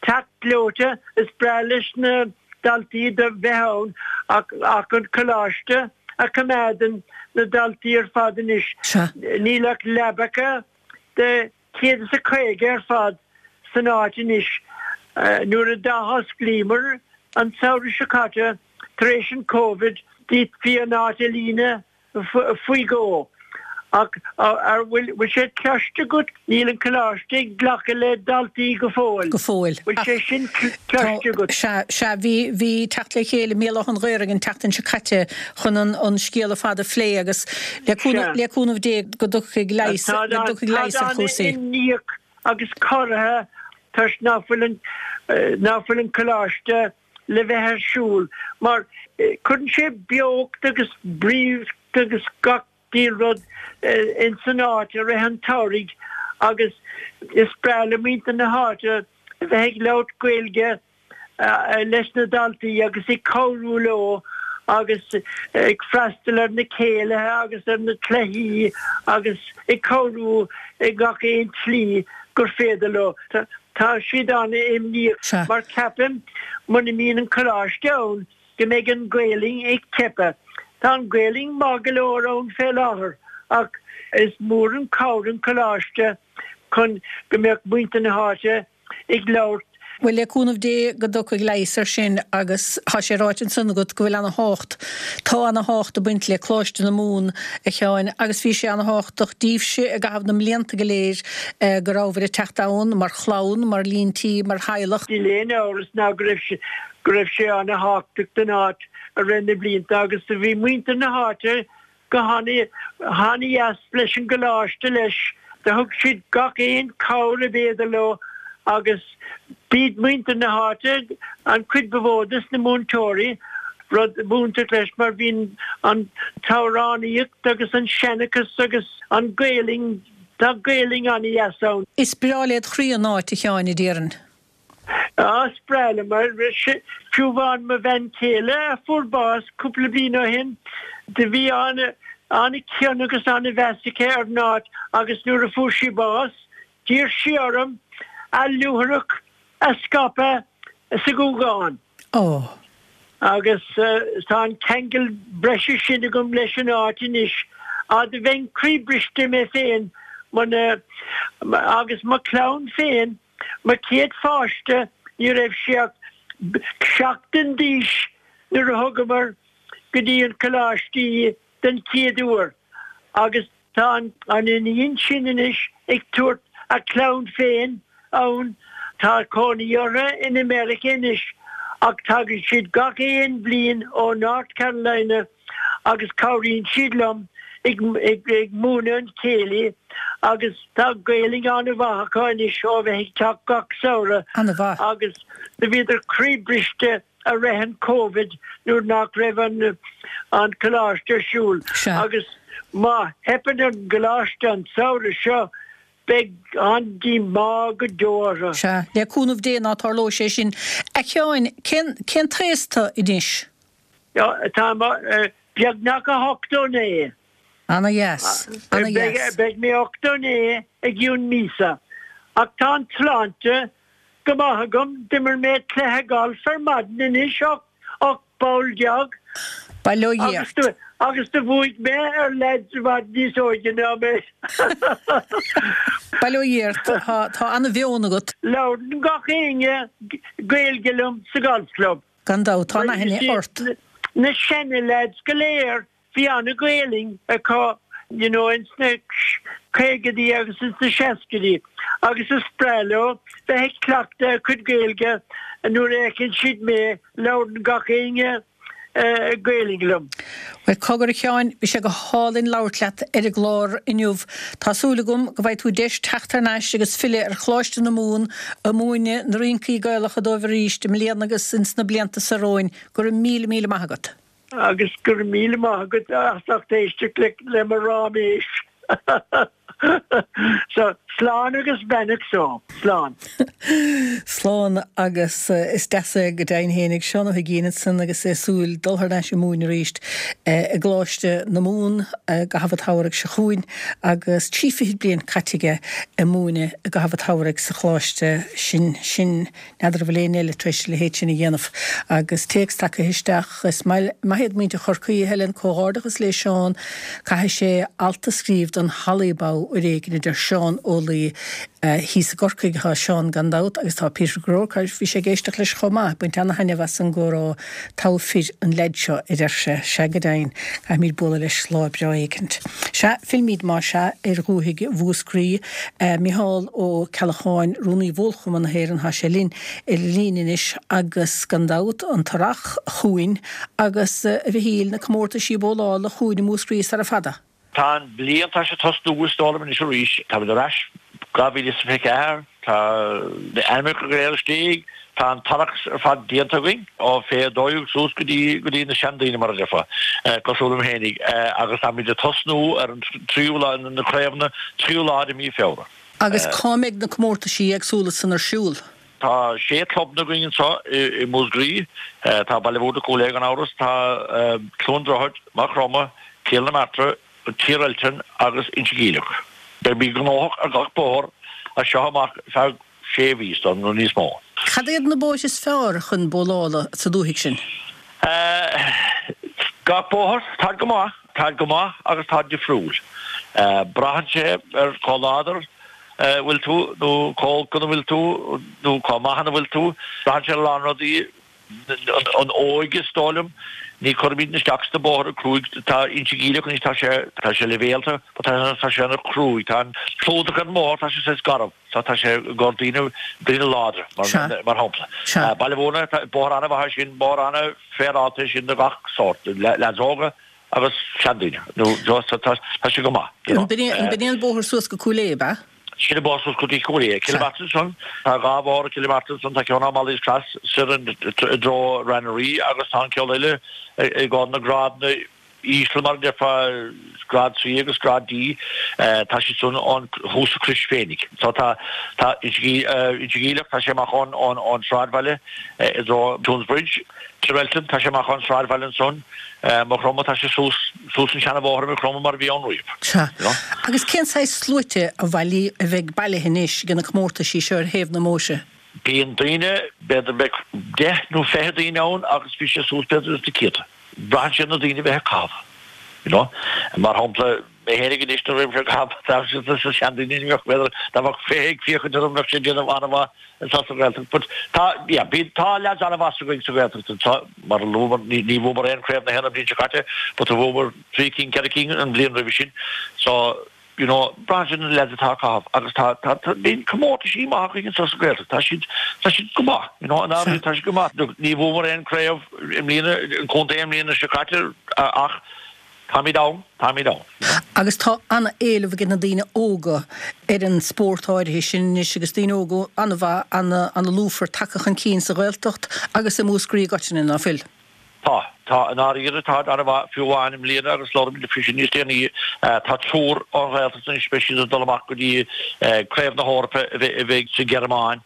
teach gleoite, is breá leis na daltaí do bheith ann ach an coláiste a choimeádann na daltaí ar fad anois. Níl ach leabacha de 150 ar fad san áit anois. Nuair a d'athosclaíomar an samhradh seo caite tar éis an Covid, d'fhéadfaí an áit a líonadh faoi dhó. Ach an bhfuil sé cloiste agat, níl an coláiste ag glacadh le daltaí go fóill. Go fóill. Bhfuil sé sin cloiste agat? Sea, sea, bhí, bhí teacht le chéile i mBéal Átha an Ghaorthaidh an tseachtain seo caite chun an, an scéal ar fad a phlé agus le cúnamh, le cúnamh Dé go dtiocfaidh leigheas, go dtiocfaidh leigheas ar chúrsaí. Táid an-imníoch agus corraithe toisc ná fuil an, ná fuil an coláiste le bheith ar siúl mar cuireann sé beocht agus bríocht agus gach diabhal rud ins an áit i rith an tsamhraidh agus is breá le muintir na háite a bheith ag labhairt Gaeilge leis na daltaí agus ag cabhrú leo agus ag freastal ar na céilithe agus ar na cluichí agus ag cabhrú i ngach aon tslí gur féidir leo. Tá siad an-imníoch mar ceapaim muna mbíonn an coláiste ann go mbeidh an Ghaelainn ag teipeadh. Tá an Ghaelainn maith go leor ann fé láthair ach is mór an cabhair an coláiste chun go mbeadh muintir na háite ag labhairt. Bhuel, le cúnamh Dé go dtiocfaidh leigheas air sin agus tá sé ráite ansan agat go bhfuil ana thábhacht, tá ana thábhacht ag baint le Coláiste na Mumhan, a Sheáin, agus bhí sé ana thábhachtach díbhse i gcaitheamh na mblianta go léir go rabhabhair ag teacht ann mar chlann, mar líon tí, mar theaghlach. Níl aon amhras ná go raibh sé, go raibh sé ana thábhachtach don áit i rith na blianta agus do bhí muintir na háite go han-dheas leis an gcoláiste leis. Do thug siad gach aon cabhair ab fhéidir leo agus b'iad muintir na háite an chuid ba mhó des na múinteoirí, rud iontach leis mar bhíonn an t-amhránaíocht agus an seanchas agus an Ghaelainn, tá Gaelainn an-dheas ann. Is breá led chroí an áit, a Sheáin, a déarfainn. Á, is breá liom mar fiú amháin mo bhean chéile a fuair bás cúpla bliain ó shin, do bhí an-chion agus an-mheas aici ar an áit agus nuair a fuair sí bás, d'iarr sí orm a luaithreach a scaipeadh sa Ghúgán. Ó. Agus tá an ceangal breise sin agam leis an áit anois. Á, do bheinn croíbhriste mé féin muna, agus mo chlann féin, Mo chéad pháiste, ní raibh sé ach seachtain d'aois nuair a thugamar go dtí an coláiste í den chéad uair agus tá an iníon sin anois ag tabhairt a clann féin ann. Tá cónaí orthu in America anois ach tagann siad gach aon bhliain ó North Carolina agus cabhraíonn siad liom ag múineadh an chéilí agus tá Gaelainn an-mhaith acu anois ó bheith ag teacht gach samhradh An-mhaith. agus do bhíodar croíbhriste i rith an Covid nuair nach raibh an an coláiste ar siúl Sea. agus má theipeann an gcoláiste an samhradh seo beidh an-díomá go deo orthu. Sea, le cúnamh Dé ná tarlóidh sé sin. A Sheáin, cén cén t-aos tu anois? Tá beagnach 89. Ana dheas. Ana dheas. Beidh mé 89 i gcionn míosa. Ach tá an tsláinte go maith agam. D'imir mé cluiche gailf ar maidin anois, 18 bpoll. Bail ó Dhia ort. Agus do bhuaigh mé ar leaids i bhfad níos óige ná mé. Bail ó Dhia ort. Tá ana mheon agat. Labhrann gach éinne Gaeilge liom sa Golf Club. Gan dabht, tá an-aithne ort. Na seana-leaids go léir, bhí ana-Ghaelainn acu, you know, ins na caogaidí agus ins na seascaidí agus is breá leo bheith ag cleachtadh a gcuid Gaeilge. nuair a fheiceann siad mé labhrann gach éinne Gaelainn liom. Bhuel, cogar a Sheáin, bhí sé go hálainn labhairt leat ar an gclár inniu. Tá súil agam go bhfaighidh tú deis teacht thar n-ais agus filleadh ar Choláiste na Mumhan ag múineadh na rincí Gaelacha dóibh arís i mbliana agus ins na blianta so romhainn. Go raibh míle míle maith agat. Agus go raibh míle maith agat as ucht éisteacht le mo ráiméis. So, slán agus beannacht so. Slán. Slán agus is deas é go deimhin fhéinig Seán Ó hUiginn ansan agus é ag súil dul thar n-ais ag múineadh arís i gColáiste na Mumhan i gcaitheamh an tsamhraidh seo chugainn agus 30 bliain caite aige ag múineadh i gcaitheamh an tsamhraidh sa choláiste sin. Sin. N'fheadar an bhfuil éinne eile tar éis a leithéid sin a dhéanamh. Agus téacs tagtha isteach, Is maith iad muintir Chorcaí, a Helen, comhghairdeachas le Seán, caithfidh sé alt a scríobh don Halaí Bow uair éigin, a deir Seán Ó Laoi. Thíos i gCorcaigh atá Seán gan dabht agus tá Peter Groarke, bhí sé ag éisteacht leis chomh maith, ag baint ana-thaitneamh as an gcomhrá, togha fir an leaid seo, a deir sé. Sea go deimhin, caithfimid bualadh leis lá breá éicint. Sea, fillmid más ea ar dhúthaigh Mhúscraí. Micheál Ó Ceallacháin, Rúnaí Bhólchumann na hÉireann, tá sé linn ar an líne anois agus gan dabht an t-earrach chugainn agus, a Mhichíl, na comórtaisí bólála chugainn i Múscraí sara fada. Tá an bhliain, tá sé ag tosnú is dóigh liom anois arís. Táimid ar ais 2024, tá na ainmneacha go léir istigh, tá an t-earrach ar fad déanta againn, ó fé 12 suas go dtí go dtí na seandaoine mar a déarfá, cosúil liom fhéinig, agus táimid ag tosnú ar an tríú lá, na craobhanna, tríú lá de mhí Feabhra. Agus cá mbeidh na comórtaisí éagsúla san ar siúl? Tá sé clubanna againn anseo i Múscraí. Tá Baile Mhúirne, Cúil Aodha gan amhras, tá Cluain Droichead, Maigh Chromtha, Cill na Martra, Tír Eiltín agus Inse Geimhleach. Beimid gnóthach ar gach bóthar as seo amach feadh sé mhí nó níos mó. Cad iad na bóithre is fearr chun bólála sa dúthaigh sin? Gach bóthar, táid go maith, táid go maith agus táid difriúil. Braitheann sé ar chomh láidir a bhfuil tú nó chomh olc ina bhfuil tú nó chomh maith ina bhfuil tú. Braitheann sé ar a lán rudaí. An óige is dóigh liom. Ní chuirimid isteach sna bóithre cruaidh. Tá Inse Geimhleach anois, tá sé, tá sé leibhéalta but tá, tá sé ana chruaidh. Tá an clúdach ar an mbóthar, tá sé saghas garbh. So tá sé i gcomhair daoine, daoine láidre mar, mar shampla. Baile Mhúirne, tá bóthar ana-mhaith é sin, bóthar ana-féaráilte é sin do gach sórt, leaids óga agus seandaoine. Nó so tá, tá sé go maith, you know. An b'in é an bóthar suas go Cúil Aodha, ab ea? Sin an bóthar suas go dtí Cúil Aodha. Cill na Martra ansan, tá dhá bhóthar i gCill na Martra ansan, tá ceann ó Mally's Cross soir i dtreo Rath na Rí agus tá an ceann eile i gcomhair na grádanna íseal mar a déarfá, grád C agus grád D, tá siad san ón thuas sa Chrois féinig. So tá, tá Inse Geimhleach, tá sé amach ón, ón, ón sráidbhaile i dtreo Toonsbridge, Tír Eiltín, tá sé amach ón sráidbhaile ansan, Maigh Chromtha, tá sé suas, suas an seana-bhóthar i Maigh Chromtha mar a bhí ann riamh. Sea. Agus cén saghas sluaite a bhailí, a bheidh bailithe anois ag na comórtaisí seo ar thaobh na mbóithre? Bíonn daoine, b'fhéidir beidh deich nó 20 daoine ann agus bhí sé suas b'fhéidir ins na céadta. Braitheann sé ar na daoine a bheith ag caitheamh, you know. Mar shampla, mé fhéinig anois nuair a bhím ag caitheamh, tá na seandaoine ní bheadh, b'fhéidir, dá mbeadh 20 ag féachaint orm bheadh sé ag déanamh an-mhaith anseo sa Ghaeltacht. But tá, yeah, bíonn, tá leaids an-mhaith againn sa Ghaeltacht anseo, mar a luamar, ní, ní bhuamar aon chraobh na hÉireann an bhliain seo caite, but bhuamar trí cinn, ceithre cinn an bhliain roimhe sin. So, you know, braitheann sé ar na leaids atá ag caitheamh agus tá, tá, tá, bíonn comórtaisí maith againn anseo sa Ghaeltacht, tá siad, tá siad go maith, you know, in áirithe tá siad go maith. Look, ní bhuamar aon craobh i mbliana, an contae i mbliana seo caite ach táimid ann, táimid ann, you know. Agus tá an-éileamh ag na daoine óga ar an spórt áirithe sin anois agus daoine óga an-mhaith, an-lúfar tagtha chun cinn sa Ghaeltacht agus i Múscraí i gcoitinne, ná fuil? Tá. Tá. I ndáiríre tá an-mhaith, fiú amháin i mbliana agus labhróimid faoi sin níos déanaí, tá triúr ón Ghaeltacht anois, beidh siad ag dul amach go dtí Craobh na hEorpa a bheidh sa Ghearmáin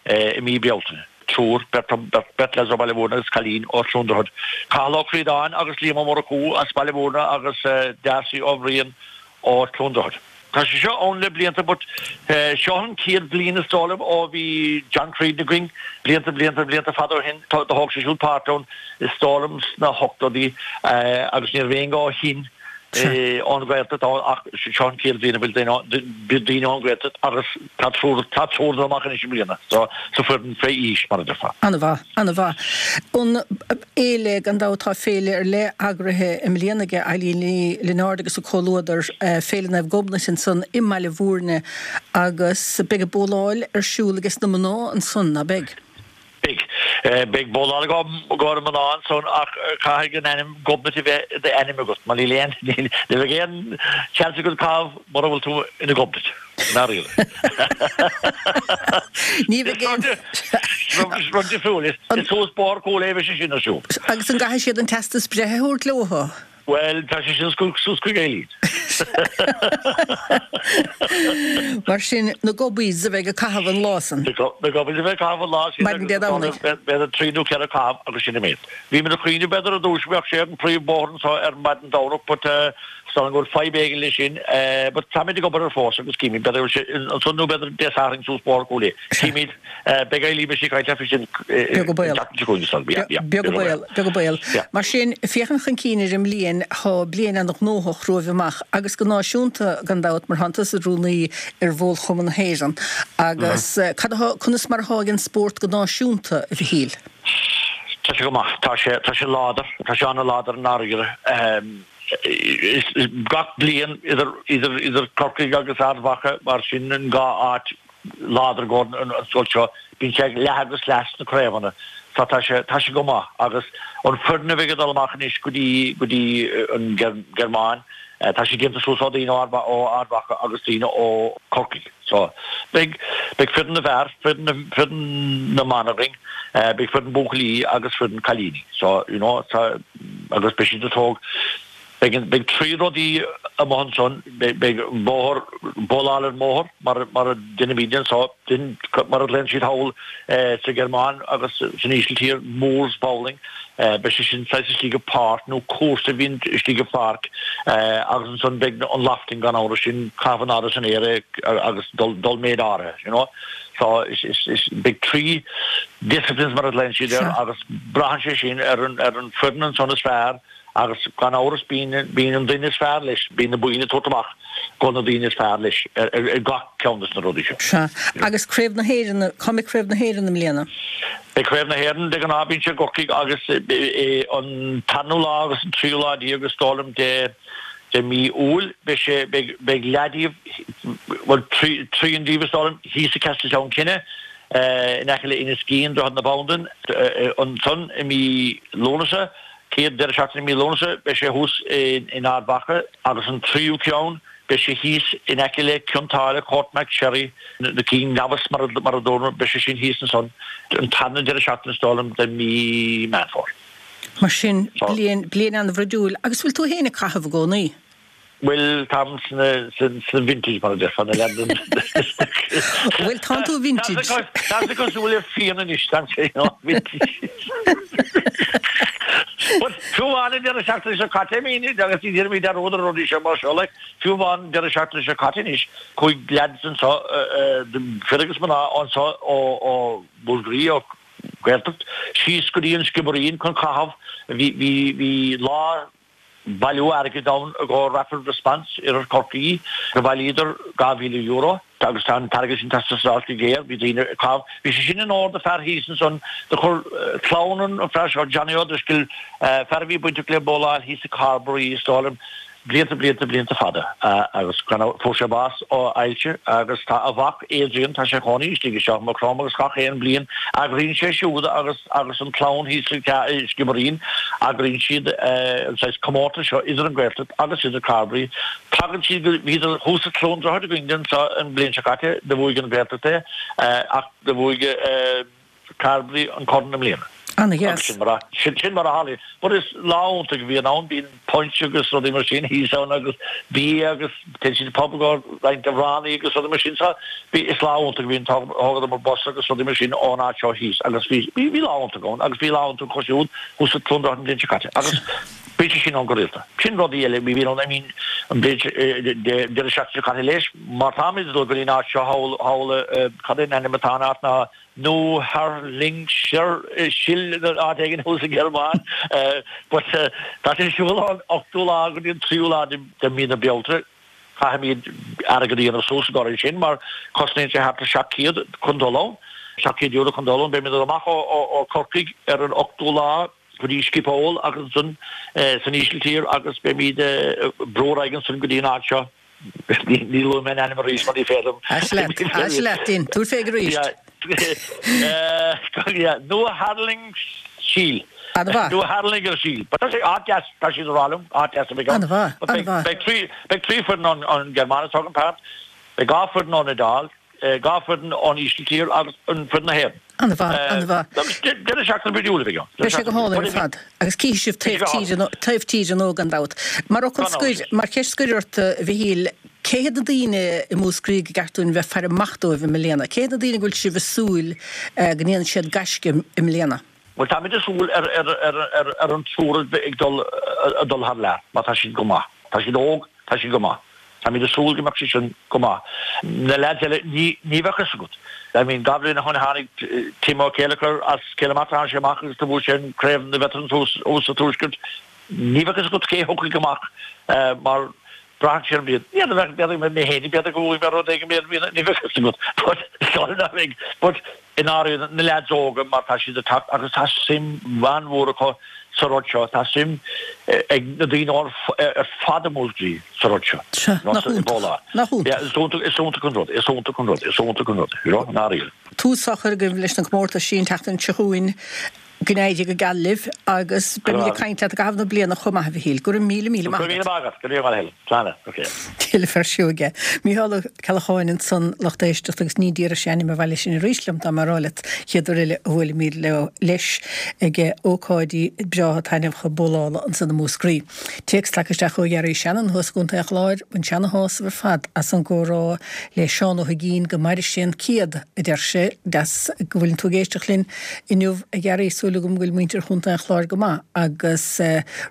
i mí Bealtaine. Triúr, beirt, beirt leaids ó Bhaile Mhúirne agus cailín ó Chluain Droichead. Cathal Ó Críodáin agus Liam Ó Murchú as Baile Mhúirne agus Darcy Ó Bhriain ó Chluain Droichead. Tá sé seo ann le blianta but seo an chéad bhliain is dóigh liom ó bhí John Creedon againn, blianta blianta blianta fada ó shin, do thóg sé siúd páirt ann is dóigh liom sna hochtóidí agus ní raibh éinne ó shin ón Ghaeltacht ann ach seo an chéad bhliain a bhfuil daoine ón Ghaeltacht agus tá triúr tá triúr ag dul amach anois i mbliana so sa foireann fé aois mar a déarfá. An-mhaith. An-mhaith. An fhéile, gan dabht tá féile ar leith eagraithe i mbliana aige Eileen Ní Lionáird agus a comhluadar, Féile Naomh Gobnait ansan i mBaile Mhúirne agus beidh an bóláil ar siúl ages na mná ansan, ná beidh? Beidh. Beidh bowláil i gcomhair mná ansan ach caithfidh an ainm Gobnait a bheith i d'ainm agat mar níl aon, ní bheidh aon chance agat caitheamh mura bhfuil tú ina Gobnait, i ndáiríre. Ní bheidh aon. Is rud difriúil, is suas Bóthar Cúil Aodha a bheidh sé sin ar siúl. Agus an gcaithfidh siad an teastas breithe a thabhairt leo? Bhuel, tá sé sin suas chuig Eileen. Mar sin, na Gobbies a bheidh ag caitheamh an lá san. Na Gobbies a bheidh ag caitheamh an lá sin. Maidin Dé Domhnaigh. B'fhéidir trí nó 4 caitheamh agus sin an méid. Bhí muid ag cuimhneamh b'fhéidir ar dtús go mbeadh sé ar an príomhbhóthar anseo ar maidin Domhnach but is dóigh liom go bhfuil fadhb éigin leis sin. But táimid ag obair air fós agus címid b'fhéidir go bhfuil sé ansan nó b'fhéidir Dé Sathairn suas Bóthar Cúil Aodha. Címid. Beidh Eileen beidh sí ag caint leat faoi sin Beag an baol. an tseachtain seo chugainn is dóigh liom. Yeah, yeah. Beag an baol, beag an baol. Yeah. Mar sin, féachaint chun cinn ar an mbliain, tá bliain an-ghnóthach romhaibh amach agus go náisiúnta gan dabht mar tánn tusa i do rúnaí ar Bhólchumann na hÉireann. Agus cad atá, conas mar atá ag an spórt go náisiúnta, a Mhichíl? Tá sé go maith. Tá sé, tá sé láidir. Tá sé an-láidir i ndáiríre. Is gach bliain idir, idir, idir Corcaigh agus Ard Mhacha mar sin an dhá áit láidir i gcomhair an scoil seo. Bíonn sé ag leath agus leath sna craobhanna so tá sé, tá sé go maith agus an foireann a bheidh ag dul amach anois go dtí, go dtí an Ghearmáin, tá sé déanta suas ó daoine ó Ard Mhacha agus daoine ó Corcaigh. So beidh, beidh foireann na bhfear, foireann na, foireann na mban againn, beidh foireann buachaillí agus foireann cailíní. So, you know, tá, agus beidh siad ag tóg. Beidh beidh trí rudaí amuigh ansan, beidh bóthar, bowláil ar an mbóthar mar mar a deinimídne anso, mar a ghlaonn siad thall sa Ghearmáin agus san Ísiltír, Moors bowling, beidh sé sin saghas istigh i bpáirc nó cúrsa a bhíonn istigh i pháirc agus ansan beidh an lofting gan amhras, sin caitheamh in airde san aer agus dul dul méid áirithe, you know. So is is is beidh trí disciplines mar a ghlaonn siad air agus braitheann sé sin ar an ar an foireann ansan is fearr Agus gan amhras bíonn bíonn an duine is fearr leis, bíonn na boinn ag tabhairt amach go na daoine is fearr leis ar ar gach ceann des na rudaí seo. Sea. Agus Craobh na hÉireann, cá mbeidh Craobh na hÉireann i mbliana? Beidh Craobh na hÉireann, de ghnáth bíonn sé i gCorcaigh agus an tarna lá agus an tríú lá déag is dóigh liom de de mí Iúil beidh sé beidh beidh leath díobh bhuel trian díobh is dóigh liom thíos i Castletown Kinne in aice le Inis Gean, Droichead na Bandan ansan i mí Lúnasa. Chéad deireadh seachtaine i mí Lúnasa beidh sé thuas in Ard Mhacha agus an tríú ceann beidh sé thíos in aice le Cionn tSáile, Courtmacsherry, na Cinn Neamhas mar a dúramar, beidh sé sin thíos ansan an tarna deireadh seachtaine is dóigh liom de mí Meán Fómhair. Mar sin, bliain, bliain an-bhruidiúil. Agus bhfuil tú féin ag caitheamh i gcónaí? Bhuel, táim sna, sna vintage mar a déarfá, na leaids. Bhuel, tánn tú vintage. Tá sé cosúil le fíon anois, tá sé vintage. But fiú amháin an deireadh seachtaine seo caite, I mean, agus ní déanaimid dearúd ar rudaí seo mar seo, like, fiú amháin an deireadh seachtaine seo caite anois, chuaigh leaids anseo, fir agus mná anseo ó, ó Mhúscraí, ó Gaeltacht, síos go dtí an Sciobairín chun caitheamh, bhí, bhí, bhí lá, bailiú airgid ann i gcomhair Rapid Response Iarthar Chorcaí do bhailíodar €2,000 agus tá an t-airgead sin ag teastáil go géar. Bhí daoine ag caitheamh. Bhí sé sin in onóir do fear thíos ansan do chuir clann an fear seo, Johnny O'Driscoll, fear a bhí bainteach le bowláil thíos i Carbery is dóigh liom, blianta, blianta, blianta fada agus gan amhras fuair sé bás ó ailse agus tá a mhac Adrian, tá sé ina chónaí istigh i seo i Maigh Chromtha agus gach aon bhliain eagraíonn sé siúd agus agus an clann thíos sa Sciobairín, eagraíonn siad an saghas comórtas seo idir an Gaeltacht agus idir Carbery. Tagann siad go, bhíodar thuas i Cluain Droichead againn anseo an bhliain seo caite, do bhuaigh an Ghaeltacht é ach do bhuaigh Carbery an corn i mbliana. Ana-dheas. Sin mar a, sin mar a tharlaíonn. But is lá iontach a bhíonn ann, bíonn punch agus rudaí mar sin thíos ann agus bia agus téann siad pub go roinnt amhránaí agus rudaí mar sin. So bhí, is lá iontach a bhíonn, thógadar bus agus rudaí mar sin ón áit seo thíos agus bhí, bhí, bhí lá iontach ann agus bhí lá iontach acu siúd thuas i Cluain Droichead an bhliain seo caite agus bíonn sé sin ann go rialta. Sin rudaí eile, bhí ann, I mean, an bhliain seo, deireadh seachtaine seo caite leis, mar táimid ag dul go dtí an áit seo thall, thall, cad é an ainm atá an áit ná, Neuharlingersiel áit éigin thuas sa Ghearmáin. But tá sé ar siúl ón ochtú lá go dtí an tríú lá de mhí na Bealtaine. Caithfimid airgead a dhéanamh suas i gcomhair sin mar cosnaíonn sé thart ar 700 chun dul ann. €700 chun dul ann. Beimid amach ó Chorcaigh ar an ochtú lá go dtí Schiphol agus ansan san Ísiltír agus beimid ag brú ar aghaidh ansan go dtí an áit seo. Ní luafaidh mé an ainm arís mar ní féidir liom. Ais leat, ais leat, Dean. Tabhair féig arís. Neuharlingersiel. An-mhaith. Neuharlingersiel. But tá sé áit deas, tá siad ag rá liom, áit deas a bheidh ann. An-mhaith, an-mhaith. Beidh trí, beidh trí foireann ón Ghearmáin is dócha, an Beidh 2 foireann ón Iodáil, 2 foireann ón Ísiltír agus an foireann na hÉireann. An-mhaith, an-mhaith. Agus deireadh seachtaine bríomhar a bheidh ann. Beidh sé go hálainn ar fad. Agus cífidh sibh taobh tíre, taobh tíre nua gan dabht. Mar fhocal scoir, mar cheist scoir ort, a Mhichíl, cé hiad na daoine i Múscraí gur ceart dúinn bheith ag faire amach dóibh i mbliana? Cé hiad na daoine go bhfuil sibh ag súil go ndéanfaidh siad gaisce i mbliana? Bhuel, táimid ag súil ar an triúr a bheith ag dul thar lear, mar tá siad go maith. Tá siad óg, tá siad go maith. Táimid ag súil go mbeadh siad sin go maith. Na leaids eile, ní bheadh fhios agat. I mean, 2 bhliain ó shin tháinig Tim Ó Céileachair as Cill na Martra, tháinig sé amach agus do bhuaigh sé an Craobh na Veterans thuas sa Tuaisceart. Ní bheadh fhios agat cé a thiocfaidh amach mar braitheann sé ar an mbliain. N'fheadar, b'fhéidir mé féin, b'fhéidir go bhfuair mé rud éigin, ní bheadh fhios agat. But, sorry, ná beidh. But, i ndáiríre, na leaids óga mar tá siad ag teacht agus tá suim an-mhór acu sa rud seo, tá suim ag na daoine ar fad i Múscraí sa rud seo. Sea, nach iontach, nach iontach. Yeah, is iontach, is iontach an rud, is iontach an rud, is iontach an rud, you know, i ndáiríre. Tús á chur agaibh leis na comórtais an tseachtain seo chugainn. Go n-éirí go geal libh agus beimid ag caint leat i gcaitheamh na bliana chomh maith, a Mhichíl. Go raibh míle míle maith agat. Go raibh míle maith agat. Go raibh maith agat. Slán. Ok. Tuilleadh fear sióige. Mícheál Ó Ceallacháin ansan, lucht éisteachta, agus ní déarfadh sé ainm an bhaile sin arís liom dá mba a rá leat chéad uair eile a bhuailfimid leo leis ag ócáidí breátha taitneamhacha bólála ansan i Múscraí. Téacs tagtha isteach ó Ghearaí Shannon thuas i gContae an Chláir, Bhain sé ana-shásamh ar fad as an gcomhrá le Seán Ó hUigínn, go maire sé an 100, a deir sé. Deas go bhfuileann tú ag éisteacht linn inniu a Ghearaí, súil agam go bhfuil muintir Chontae an Chláir go maith. Agus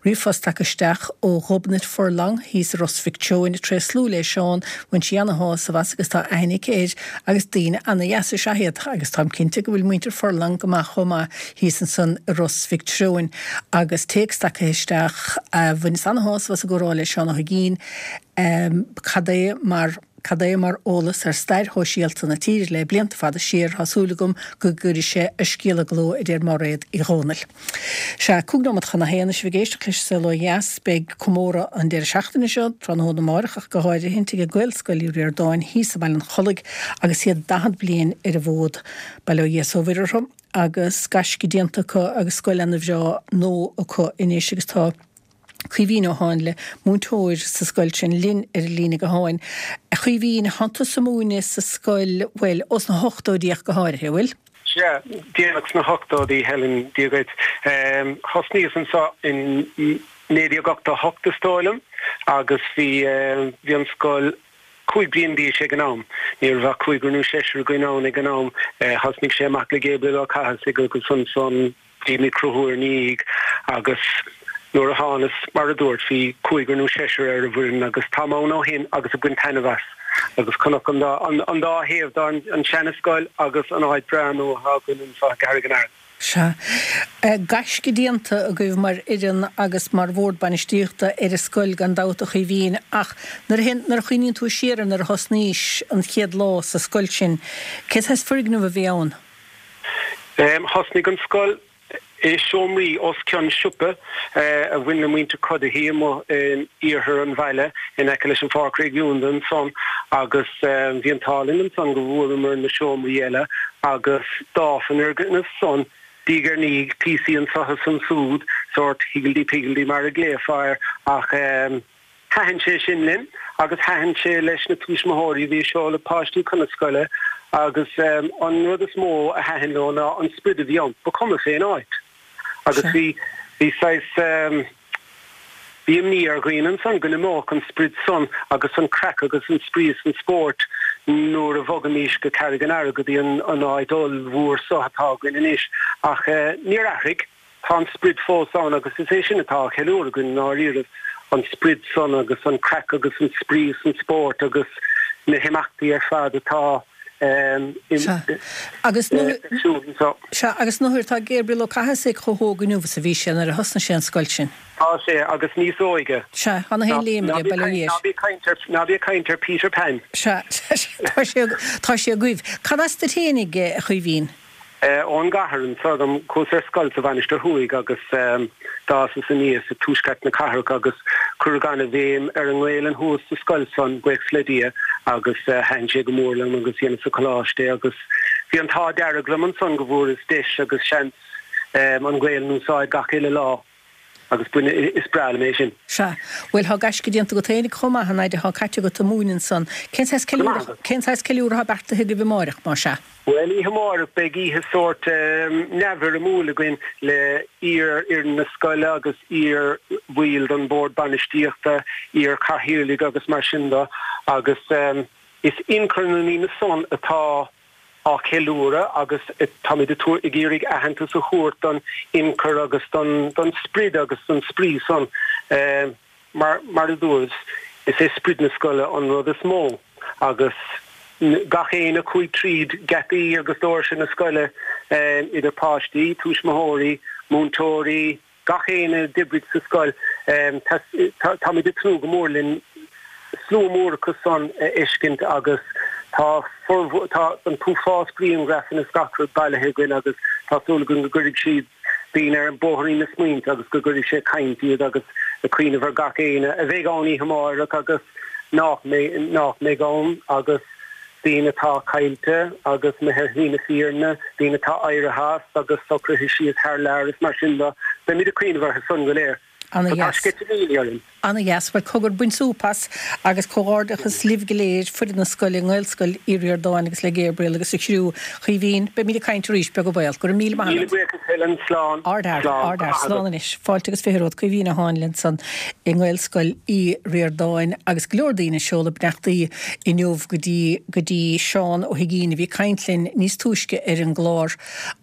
ríomhphost tagtha isteach ó Ghobnait Furlong thíos i Ros Mhic Treoin, ag tréaslú le Seán, bhain sí ana-shásamh as agus tá aithne aici air agus daoine ana-dheasa is ea iad agus táim cinnte go bhfuil muintir Furlong go maith chomh maith thíos ansan i Ros Mhic Treoin agus téacs tagtha isteach, Bhaineas ana-shásamh as an gcomhrá le Seán Ó hUigínn, cad é mar cad é mar eolas ar stair shóisialta na tíre le blianta fada siar, tá súil agam go gcuirfidh sé a scéal i gcló, a deir Máiréad Uí Dhomhnaill. Sea, 5 nóiméad chun a haon, is sibh ag éisteacht leis Saol Ó Dheas. Beidh comóradh an deireadh seachtaine seo, tráthnóna amárach ach go háirithint, ag Gaelscoil Uí Ríordáin thíos i mBaile an Chollaigh agus iad 40 bliain ar an bhfód. Bail ó Dhia is ó Mhuire orthu. agus gaisce déanta acu agus scoil ana bhreá nua acu anois agus tá Caoimhín Ó Háinle, múinteoir sa scoil sin, linn ar an líne gutháin. A Chaoimhín, thánn tusa ag múineadh sa scoil, bhuel, ós na hochtóidí ach go háirithe, an bhfuil? Sea, déanach sna hochtóidí, Helen, Dia dhuit. Thosnaíos anseo in 1988 is dóigh liom agus bhí, bhí an scoil, 5 bliain d'aois ag an am. Ní raibh ach cúigear nó seisear againn ann ag an am. Thosnaigh sé amach le Gabriel Ó Cathasaigh agus ansan bhí mé ag cruthú ina dhiaidh agus nuair a thánas, mar a dúirt, bhí cúigear nó seisear ar an bhfoireann agus táim ann ó shin agus ag baint taitneamh as. Agus chonac an dá, an dá thaobh de, an seana-scoil agus an áit breá nua atá againn anseo i gCarraig an Aird. Sea. Gaisce déanta agaibh mar fhoireann agus mar bhord bainistíochta ar an scoil gan dabht a Chaoimhín ach nuair a nuair a chuimhníonn tú siar ar nuair a thosnaís an chéad lá sa scoil sin, cé saghas foirgneamh a bhí ann? Thosnaigh an scoil i seomraí os cionn siopa a bhain le muintir Cuddihy amuigh in iarthar an bhaile in aice leis an Pháirc Réigiúnda ansan agus bhí an t-ádh linn ansan go bhfuaireamar na seomraí eile agus d'fhás an fhoirgneamh san diaidh ar ndiaidh, píosaí anso is ansúd, sórt higgledy-piggledy mar a ghlaofá air, ach thaitin sé sin linn agus thaitin sé leis na tuismitheoirí a bhí ag seoladh páistí chun na scoile agus an rud is mó a thaitin leo ná an sprid a bhí ann, ba chuma fén áit. Agus bhí, bhí saghas, bhí imní ar dhaoine ansan go n-imeodh an sprid san agus an craic agus an spraoi is an spórt nuair a bhogfaimís go Carraig an Earraigh go dtí an an áit ollmhór so atá againn anois. Ach níor athraigh, tá an sprid fós ann agus is é sin atá á cheiliúradh againn i ndáiríribh, an sprid san agus an craic agus an spraoi is an spórt agus na himeachtaí ar fad atá Sea. Agus nuair. Sea, agus nuair tá Gabriel Ó Cathasaigh chomh hóg inniu is a bhí sé nuair a thosnaigh sé an scoil sin. Tá sé, agus níos óige. Sea, tá na haon léim aige, bail ó Dhia air. Ná bí ag caint ar, ná bí ag caint ar Peter Pan. Sea, tá sé, tá sé agaibh. Cad as duit fhéinig, a Chaoimhín? Ón gcathair anso dom. Chuas ar scoil sa Mhainistir Thuaidh agus d'fhásas aníos i tuaisceart na cathrach agus cuireadh ana-bhéim ar an nGaelainn thuas sa scoil san, buíochas le Dia, agus thaitin sé go mór liom agus dheineas sa choláiste é agus bhí. Bhí an t-ádh dearg liom ansan go bhfuaireas deis agus seans an Ghaelainn a úsáid gach uile lá agus is breá liom é sin. Sea. Bhuel, thá gaisce déanta agat fhéinig chomh maith, an fhaid athá caite agat ag múineadh ansan. Cén saghas ceiliúradh, cén saghas ceiliúradh athá beartaithe agaibh amáireach, má sea? Bhuel, oíche amárach beidh oíche sórt neamhfhoirmiúil againn le iar-fhoireann na scoile agus iar-bhaill den Bhord Bainistíochta, iar-chathaoirligh agus mar sin de agus is ionchur na ndaoine san atá á cheiliúradh agus táimid ag iarraidh aitheantas a thabhairt don ionchur agus don sprid agus don spraoi san. Mar mar a dúras, is é sprid na scoile an rud is mó agus gach éinne a chuaigh tríd geataí agus doirse na scoile, idir páistí, tuismitheoirí, múinteoirí, gach éinne a d'oibrigh sa scoil, táimid ag tnúth go mór linn slua mór acu san a fheiscint agus tá tá an t-uafás grianghrafanna is gach rud bailithe againn agus tá súil againn go gcuirfidh siad daoine ar bhóithrín na smaointe agus go gcuirfidh sé ag caint iad agus ag cuimhneamh ar gach éinne a bheidh ann oíche amárach agus nach mbeidh, nach mbeidh ann agus daoine atá caillte agus imithe ar shlí na fírinne, daoine atá éirithe as agus socraithe síos thar lear is mar sin de. Beimid ag cuimhneamh orthu san go léir. Ana Tá dheas. sceitimíní orainn. Ana dheas. Bhuel, cogar, bain súp as agus comhghairdeachas libh go léir, foireann na scoile, i nGaelscoil Uí Ríordáin agus le Gabriel agus a chriú. A Chaoimhín, beimid ag caint arís, beag an baol. Go raibh míle maith Míle agat. buíochas Helen. Slán. Ardfhear, Slán. Go ardfhear. maith Slán agat. anois. Fáilte agus 20 romhat. Caoimhín Ó Háinle ansan i nGaelscoil Uí Ríordáin agus go leor daoine ag seoladh beannachtaí inniu go dtí, go dtí Seán Ó hUigínn a bhí ag caint linn níos túisce ar an gclár.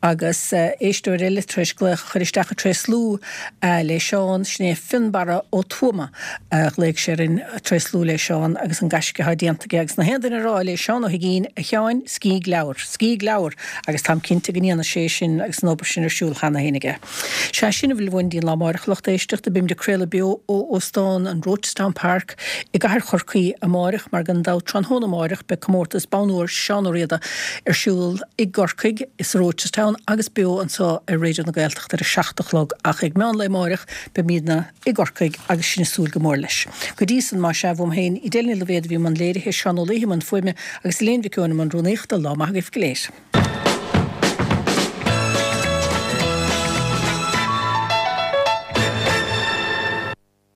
Agus éisteoir eile tar éis glaoch a chur isteach ag tréaslú le Seán, sin é Fionnbarra Ó Tuama a ghlaoigh sé orainn ag tréaslú le Seán agus an gaisce atá déanta aige agus na haon duine a rá le Seán Ó hUigínn, a Sheáin, scíg leabhar, scíg leabhar agus táim cinnte go ndéanfaidh sé sin agus an obair sin ar siúl cheana féin aige. Sea, sin a bhfuil uainn dtí'n lá amáireach, a lucht éisteachta, beimid ag craoladh beo ó Óstán an Rochestown Park i gcathair Chorcaí amáireach mar gan dabht tráthnóna amáireach beidh comórtas Bonn Óir Seán Ó Riada ar siúl i gCorcaigh, sa Rochestown agus beo anseo ar Raidió na Gaeltachta ar a 7 a chlog ach ag meán lae amáireach beimidne i gCorcaigh agus sinn ag súil go mór leis. Go dtí san, más ea, uaim féin, Edel Ní Loibhéad a bhí i mbun léirithe, Seán Ó Laoithe i mbun fuaime agus Elaine Mhic Eoin i mbun rúnaíochta, lá maith agaibh go léir.